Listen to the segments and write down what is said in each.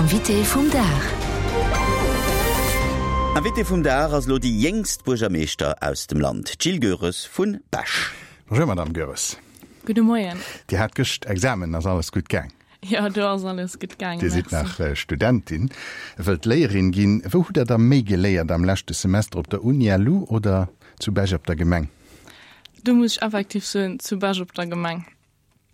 Invité vum Dag. Invité vum Dag ass elo déi jéngst Buergermeeschter aus dem Land, d'Jill Goeres vu Bech. Bonjour Madame Goeres. Gudde Moien. Dir hat gëscht Examen, ass alles gutt gaang? Jo, do ass alles gutt gaangen, Dir sidd nach Studentin, wëllt Léierin ginn. Wou hutt Der da méi geléiert, am leschte Semester op der Uni LU oder zu Bech op der Gemeng? Do muss ech effektiv soen, zu Bech op der Gemeng.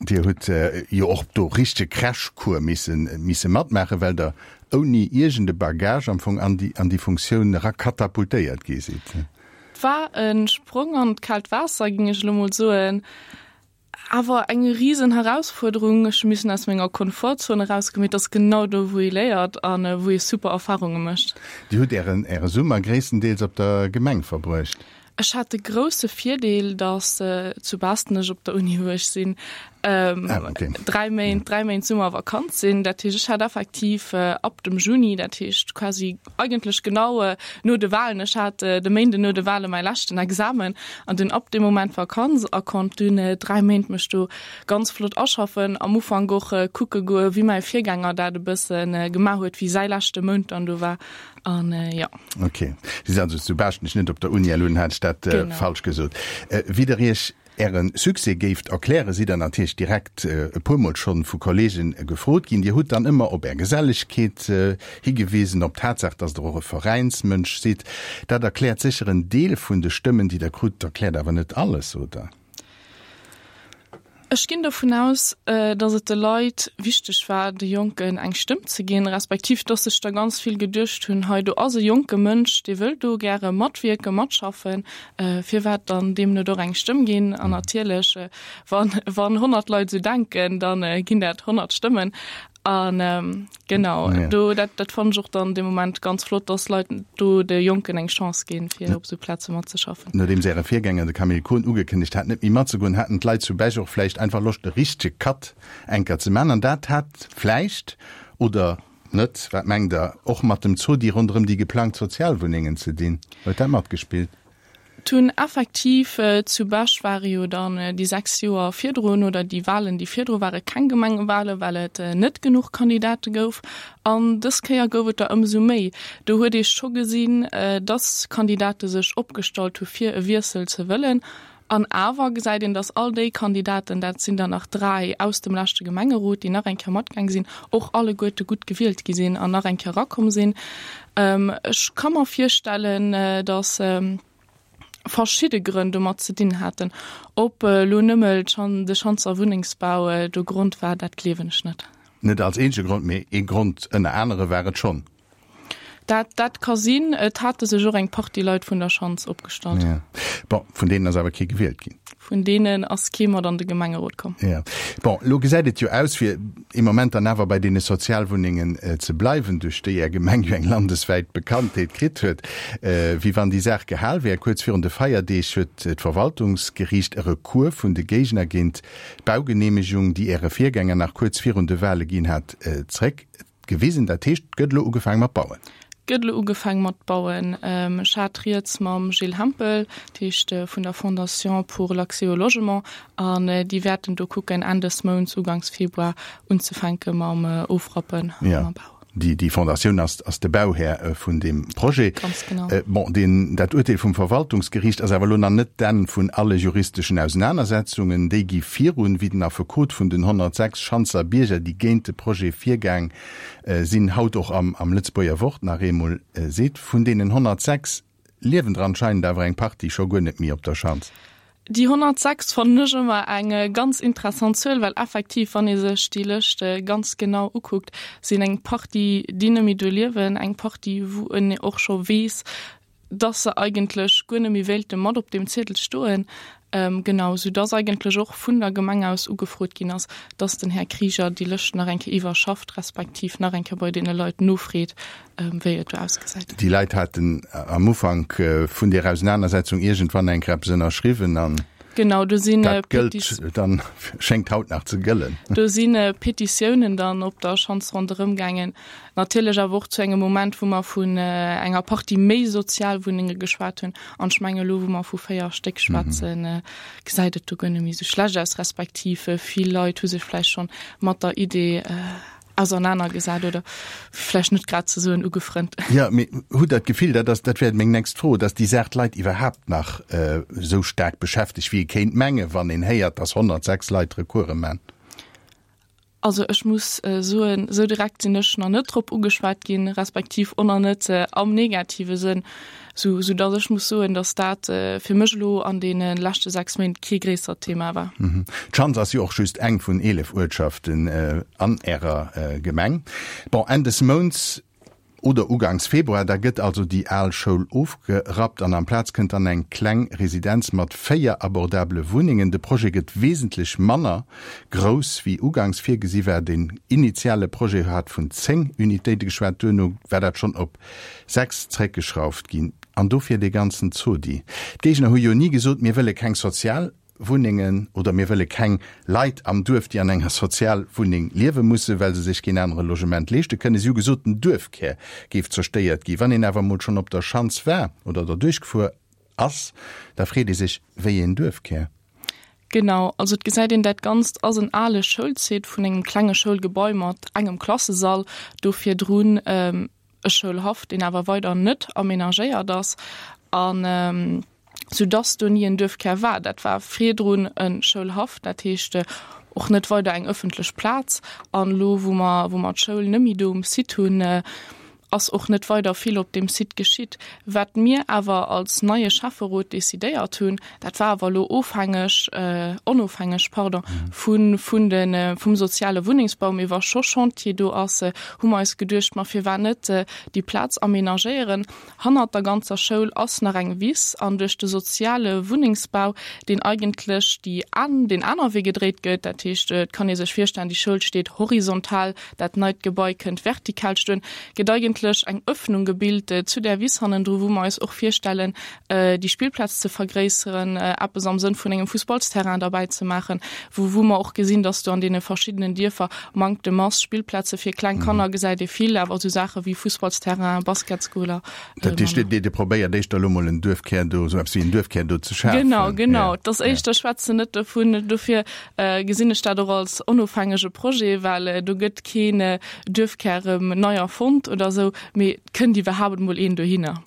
Dir hutt jo och do richtege Crashcours misse matmaachen, well Der ouni iergend e Bagage am Fong an déi Funktioun era katapultéiert gi sidd. Et war e Sprong an d'kaalt Waasser, géing ech elo mol soen. Awer eng risen Herausfuerderung. Ech hu missen aus menger Komfortzone erausgoen, mee et ass genau do, wou ee léiert a wou ee super Erfarunge mécht. Dir hutt Ären Äre Summer gréisstendeels op der Gemeng verbruecht. Ech hat de grousse Virdeel, datt zu Baastnech op der Uni, wou ech sinn, 3 Méint, 3 Méint Summervakanz sinn. Dat heescht, ech hat effektiv ab dem Juni, dat heescht quasi eigentlech genau no de Wahlen, ech hat de Méinden no de Wahle mäi leschten Examen an dunn ab deem Moment Vakanz a konnt dunn 3 Méint mech do ganz flott aschaffen. Am Ufank och kucke goe wéi mäi Virgänger dat e bësse gemaach huet, wéi säi leschte Mount dann do war an jo. Ok, Si sinn also zu Baaschtnech, net op der Uni LU, hat ech dat falsch gesot. Wéi Der Iech Äre Succès géift erklären, sidd Der natierlech direkt e puermol schonn vu Kollegen gefrot ginn. Dir hutt dann ëmmer op Är Gesellegkeet higewisen, op d'Tatsaach, dass Der och e Veräinsmënsch sidd. Dat erkläert sécher en Deel vun de Stëmmen, déi Der krut, erkläert awer net alles, oder? Ech ginn dovun aus, datt et de Leit wichteg war, de Jonken eng Stëmm ze ginn, respektiv datt sech der ganz vill geduecht hunn, hei do ass e jonke Mënsch, dee wëll do gäre matwierken, matschaffen, firwat dann deem net och eng Stëmm ginn? An natierlech, wann 100 Leit esou denken, da ginn dat 100 Stëmmen. An genau, do dat dat fannen ech och dann dee Moment ganz flott, dass Leit do de Jonken eng Chance ginn, fir op esou Plaze matzeschaffen. Nodeems Äre Virgänger, de Camille Kohn, ugekënnegt hat, net méi matzegoen, haten d'Leit zu Bech och vläicht einfach Loscht, e richtege Cut enker ze man. An dat hat vläicht, oder net, wat mengt Der, och mat dem Zodi ronderëm déi geplangt Sozialwunnengen ze dinn? Huet dat matgespillt? D'hunn effektiv, zu Bech ware jo dann déi 6 Joer virdrun, oder déi Wahlen, déi virdru ware keng Gemengewahlen, well et net genuch Kandidate gouf. An dës Kéier gouf et der ëmsou méi. Do huet ee scho gesinn, dass Kandidate sech opgestallt hu fir e Wiessel ze wëllen. An awer gesäit een, dass all déi Kandidaten, dat sinn der nach 3 aus dem leschte Gemengerot, déi nach eng Kéier matgaang sinn, och alleguerte gutt gewielt gi sinn an nach eng Kéier erakomm sinn. Ech ka mer virstellen, datt verschidde Grënn domat ze dinn haten. Ob elo nëmme de Schanzer Wunnengsbau do Grond war, dat gleewen ech net. Net als eenzege Grond, mee ee Grond ënner anere war et schonn. Dat, dat ka sinn. Et hate sech och eng Partie Leit vun der Schanz opgestallt. Ja. Bon, vun deenen ass awer kee gewielt ginn. Vun deenen ass kee mat an de Gemengerot komm. Ja. Bon, elo gesäit et jo aus, fir ee Moment dann awer bei deene Sozialwunnengen ze bleiwen, duerch déi Är Gemeng jo eng landeswäit Bekanntheet kritt huet, wéi wann déi Saach gehal wär. Kuerz virun de Feierdeeg huet d'Verwaltungsgeriicht e Recours vun de Géigner géint d'Baugeneemegung, déi Äre Virgänger nach kuerz virun de Wale ginn hat, zréck Gewisen. Dat heescht, et gëtt elo ugefaang mat bauen? Et gëtt elo ugefaang mat bauen. Ech hat rieds mam Gilles Hempel, dat heescht vun der Fondation pour l'accès au logement, an déi wäerten do kucken, Enn des Mounts, uganks Februar unzefänke mam Ofrappen a mam Bau. Déi, déi Fondatioun ass, ass de Bauhär vun deem Projet. Ganz genau. Bon, deen, dat Urteel vum Verwaltungsgeriicht ass awer elo nach net d'Enn vun alle juristeschen Ausenanersetzungen. Déi gi virun, wéi den Affekot vun den 106 Schanzer Bierger, déi géint de Projet virgaang sinn, haut och am am Lëtzebuerger Wort nach eemol seet. Vun deenen 106 liewen der anscheinend awer eng Partie scho guer net méi op der Schanz. Déi 106 fannen ech ëmmer eng ganz interessant Zuel, well effektiv, wann ee sech déi Lëscht ganz genau ukuckt, sinn eng Partie, déi net méi do liewen, eng Partie, wou en och scho weess, dass se eigentlech guer net méi wéilte mat op deem Ziedel stoen. Genau, soudass eigentlech och vun der Gemeng aus ugefrot ginn ass, dass den Här Krieger déi Lëscht nach eng Kéier iwwerschafft, respektiv nach eng Kéier bei deene Leit nofreet, wéi et do ausgesäit. Déi Leit haten am Ufank vun där Ausenanersetzung iergendwann eng Kéier eppes ënnerschriwwen an Genau, do sinn dat gëllt dann, schéngt haut nach ze gëllen. Do si Petitiounen dann op der Schanz ronderëm gaangen, Natierlech awer och zu engem Moment, wou mer vun enger Partie méi Sozialwunnenge geschwat hunn. An ech mengen, elo wou mer vu 4 Stéck schwätzen, gesäit et do guer net méi esou schlecht aus, respektiv vill Leit hu sech vläicht schonn mat der Idee. Ausernanergesat oder vläicht net grad ze soen ugefrënnt. Jo, mee hutt Der d'Gefill, dat ass, dat wär meng nächst Fro, datt déi Saach d'Leit iwwerhaapt nach esou staark beschäftegt, wéi ee kéint mengen, wann een héiert, datt 106 Leit Recourse man? Also ech muss soen, esou direkt sinn ech nach net drop ugeschwat ginn, respektiv och nach net am negative Sënn, sou sou datt ech muss soen, datt dat fir mech elo an deene leschte 6 Méint kee gréissert Thema war. D'Schanz ass jo och just eng vun 11 Uertschaften an Ärer Gemeng. Bon, Enn des Mounts oder ugangs Februar, da gëtt also déi al Schoul ofgerappt an amplaz kënnt dann eng kleng Residenz mat 4 abordabele Wunnengen. De Projet gëtt wesentlech manner grouss wéi ugangs virgesi war. Den initiale Projet hat vun 10 Unitéite geschwat, duerno war dat schonn op 6 zréckgeschrauft ginn. An dofir dee ganzen Zodi. D'Géigner hu jo ni gesot, mir wëlle keng Sozialwunnengen oder mir wëlle keng Leit am Duerf, déi an enger Sozialwunneng liewe mussen, well se sech keen anere Logement leeschte kënnen. Si hu gesot, den Duerfkär géif zerstéiert ginn. Wann een awer emol schonn op der Schanz war oder derduerch gefuer ass, da freet ee sech, wéi een Duerfkär? Genau, also et gesäit een, dat Ganzt ass en ale Schoulsite vun engem klenge Schoulgebai mat engem Klassesall, do virdrun e Schoulhaff, deen awer weider net amenagéiert ass, an soudass do ni en Duerfkär war. Dat war virdrun e Schoulhaff, dat heescht och net weider eng ëffentlech Plaz. An elo, wou mer, wou mer d'Schoul net méi do um Site hunn, ass och net weider vill op deem Site geschitt. Wat mir awer als neie Schäfferot decidéiert hunn, dat war awer elo ofhängeg, onofhängeg, pardon, vu vun de vum soziale Wunnengsbau, mee wa scho Chantier do ass, hu mer eis geduecht, ma firwat net déi Plaz amenagéieren. Hannert der ganzer Schoul ass nach eng Wiss an duerch de soziale Wunnengsbau, deen eigentlech déi an deen aner Wee gedréit gëtt, dat heescht, et kann ee sech virstellen, déi Schoul steet horizontal, Dat neit Gebai kënnt vertikal stoen. Gëtt eigentlech eng Öffnung gebilt zu där Wiss hannendru, wou mer eis och virstellen, déi Spillplaz ze vergréisseren, eppes am Sënn vun engem Fussballsterrain derbäi ze maachen, wou wou mer och gesinn, dass do an deene verschiddenen Dierfer Manktem ass. Spillplaze fir kleng Kanner gesäit ee vill, awer esou Saache wéi Fussballsterrain, Basketsgoler. Dat heescht, Dir Dir probéiert éischter elo mol en Duerfkär do, esou eppes wéi en Duerfkär do ze schafen? Genau, genau. Et ass éischter, ech schwätzen net dovun, dofir gesinn ech dat och als onofhängege Projet, well do gëtt keen Duerfkär erëm nei erfonnt oder esou, mee et kënnt iwwerhaapt emol een dohinner.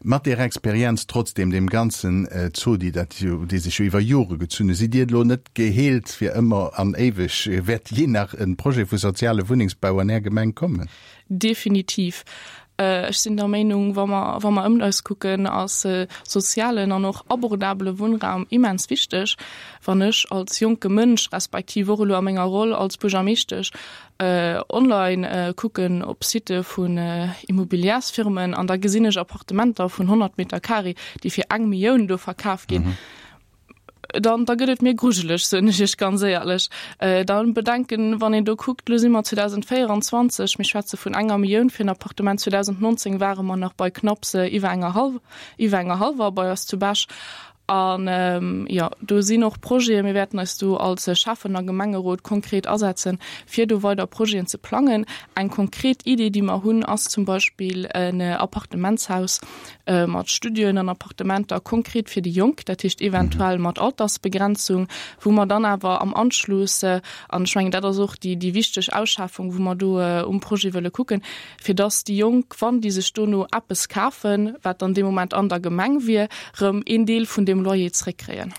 Mat där Experienz trotzdem, deem ganzen Zodi, dat jo, dee sech jo iwwer Jore gezunn huet, sidd Dir elo net geheelt fir ëmmer an éiweg? Wäert jee nach e Projet vu soziale Wunnengsbau an Är Gemeng kommen? Definitiv. Ech sinn der Meinung, wa mer, wa mer ëmt eis kucken, ass sozialen an och abordabele Wunnraum immens wichteg. Wann ech als jonke Mënsch, respektiv och elo a menger Roll als Buergermeeschtesch, online kucken op Sitte vun Immobilièrsfirmen an da gesinn ech Appartementer vun 100 Meter carré, déi fir eng Millioun do verkaf ginn, dann da gëtt et mir grujeleg, soen ech Iech ganz éierlech. Dann bedenken, wann een do kuckt, elo si mer 2024, mir schwätze vun enger Millioun fir en Appartement, 2019 ware mer nach bei knapps iwwer enger hallw, iwwer enger hallwer bei eis zu Bech. An jo, do sinn och Projeten, mir wäerten eis do als Schäffen a Gemengerot konkret asetzen, fir do weider Projeten ze plangen. Eng konkret Idee, déi mer hunn, ass zum Beispill en Appartementshaus, mat Studioen an Appartementer konkret fir déi Jonk, dat heescht eventuell mat Altersbegrenzung, wou mer dann awer am Anschluss, an ech mengen dat ass och déi déi wichteg Ausschafung, wou mer do um Projet wëlle kucken, fir dass déi Jonk, wann déi sech dono eppes kafen, wat dann dee Moment an der Gemeng wier, erëm een Deel vun deem Loyer zréckkréien.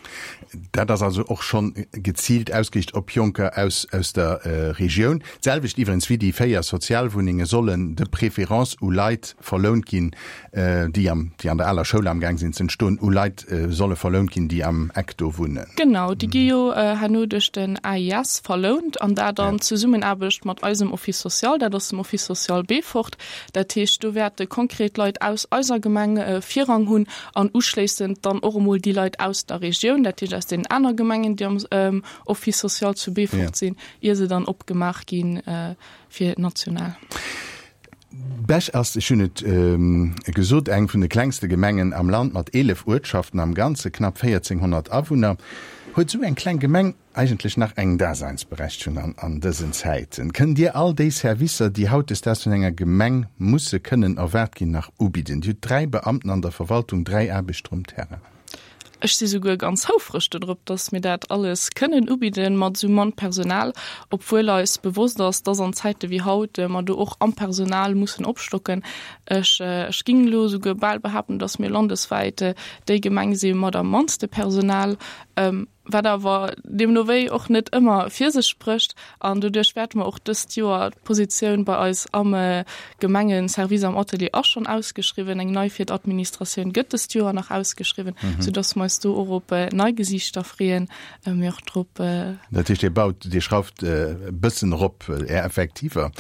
Dat ass also och schonn geziilt ausgeriicht op Jonker aus aus der Regioun. D'selwecht iwwerens wéi déi 4 Sozialwunnenge sollen de préférence u Leit verlount ginn, déi am, déi an der aler Schoul amgaang sinn ze entstoen, u Leit solle verlount ginn, déi am Eck do wunnen. Genau, déi gi jo herno duerch den AIS verlount an dat an Zesummenaarbecht mat eisem Office social, dat ass dem Office social Beefort. Dat heescht, do wäerte konkret Leit aus eiser Gemeng Virrang hunn an uschléissend dann och emol déi Leit aus der Regioun, dat heescht aus deenen aner Gemengen, déi am Office social zu Beefort sinn, ier se dann opgemaach gi fir national. Bech ass, ech hunn et gesot, eng vun de klengste Gemengen am Land mat 11 Uertschaften am Ganze knapp 1.400 Awunner. Huet esou eng kleng Gemeng eigentlech nach eng Daseinsberechtegung an dësen Zäiten? Kënnt Dir all déi Servicer, déi hautdesdaags vun enger Gemeng musse kënnen erwaart ginn, nach ubidden? Dir hutt 3 Beamten an der Verwaltung, 3 Aarbechter um Terrain. Ech si souguer ganz houfreg dodrop, dass mir dat alles kënnen ubidden mat esou mann Personal, obwuel eis bewosst ass, dass an Zäite wéi haut mer do och am Personal mussen opstocken. Ech, ech ging elo souguer bal behaapten, dass mir landeswäit déi Gemeng si mat am mannste Personal. Wat awer deemno wéi och net ëmmer fir sech sprécht. An doduerch wäerte mer och dëst Joer, d'Positioun bei eis am Gemengeservice am Atelier ass schonn ausgeschriwwen, eng nei fir d'Administratioun gëtt dëst Joer nach ausgeschriwwen, soudass mer eis do och op nei Gesiichter freeën, mee och drop. Dat heescht, Dir baut, Dir schrauft e bëssen erop Är Effektiver.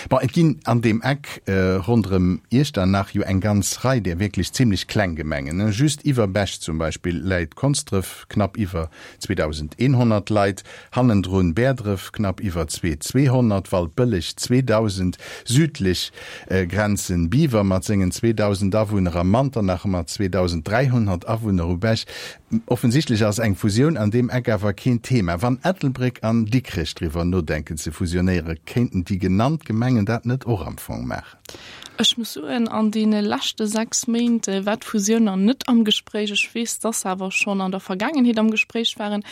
Bon, et ginn an deem Eck ronderëm Iechternach jo eng ganz Rei där wierklech zimlech kleng Gemengen. Just iwwer Bech zum Beispill läit Konsdref, knapp iwwer 2.100 Leit, hannendrun Bäerdref, knapp iwwer 2.200, Waldbëlleg, 2.000, südlech Grenzen Biwer mat sengen 2.000 Awunner a Manternach mat 2.300 Awunner u Bech. Offensichtlech ass eng Fusioun an deem Eck awer keen Thema. Wann Ettelbréck an Dikrech driwwer nodenken ze fusionéieren, kéinten déi genannt Gemengen dat net och am Fong maachen? Ech muss soen, an deene leschte 6 Méint war d'Fusioun nach net am Gespréich. Ech weess, dass se awer schonn an der Vergaangenheet am Gespréich waren.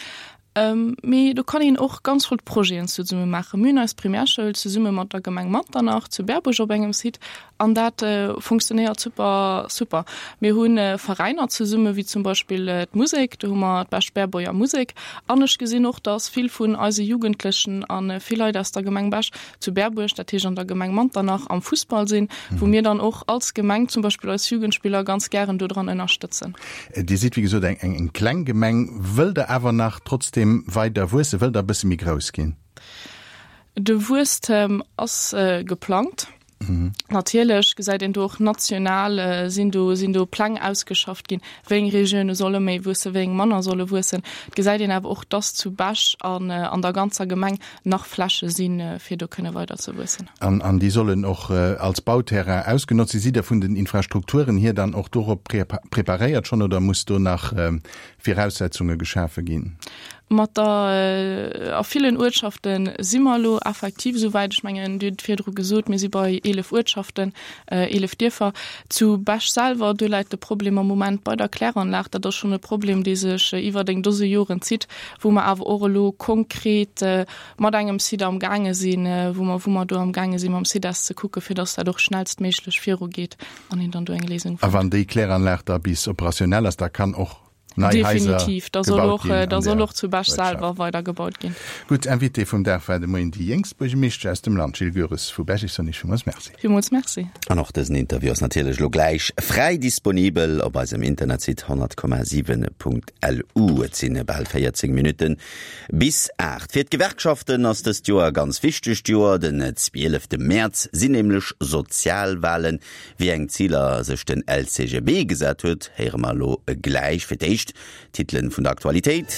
Mee do kann een och ganz flott Projeten zesumme maachen. Mir hunn eis Primärschoul zesumme mat der Gemeng Manternach zu Berbuerg op engem Site an dat funktionéiert super, super. Mir hu Veräiner zesumme wéi zum Beispill d'Musek, do hu mer d'Bech-Berbuerger Musek. An ech gesinn och, dass vill vun eise Jugendlechen a vill Leit aus der Gemeng Bech zu Berbuerg, dat heescht an der Gemeng Manternach, am Fussball sinn, wou mir dann och als Gemeng zum Beispill eis Jugendspiller ganz gären dodran ënnerstëtzen. Dir sidd wéi gesot eng eng kleng Gemeng. Wëllt Der awer nach trotzdeem weider wuessen? Wëllt Der e bësse méi grouss ginn? De Wuesstem ass geplangt. Natierlech gesäit een do och national sinn do sinn do Pläng ausgeschafft ginn, wéi eng Regioune solle méi wuessen, wéi eng manner solle wuessen. Et gesäit een awer och, dass zu Bech an an der ganzer Gemeng nach Fläche sinn, fir do kënne weider ze wuessen. An an déi sollen och als Bauterrain ausgenotzt sinn. Sidd Der vun den Infrastrukturen hier dann och dorop preparéiert schonn oder muss do nach Viraussetzunge geschafe ginn? Mat der, a villen Uertschafte si mer elo effektiv esou wäit. Ech mengen, Dir hutt et virdru gesot, mir si bei 11 Uertschaften, 11 Dierfer. Zu Bech selwer, do läit de Problem am Moment bei der Kläranlag. Dat ass schonn e Problem, dee sech iwwert eng Dose Joren zitt, wou mer awer och elo konkret mat engem Site am gaange sinn, wou mer, wou mer do am gaange si mam CIDES ze kucken, fir datt dat och schnellstméiglech virugeet an een dann do eng Léisung A fënnt. wann déi Kläranlag da bis operationell ass, da kann och nei Haiser Definitiv, da soll gebaut och, ginn da an soll där och zu Bech Uertschaft. selwer weider gebaut ginn. Gutt, Invité vum Dag war de Moien déi jéngst Buergermeeschtesch aus dem Land, Jill Goeres vu Bech. Ech soen Iech villmools Merci. Villmools Merci. An och dësen Interview ass natierlech elo gläich fräi disponibel op eisem Internetsite 100,7.lu. Et sinn bal 14 Minutten bis 8. Fir d'Gewerkschaften ass dëst Joer e ganz wichtegt Joer. Den 12 Mäerz sinn nämlech Sozialwalen. Wéi eng Ziler sech den LCGB gesat huet, héiere mer elo gläich. Fir d'éischt d'Titelen vun der Aktualitéit.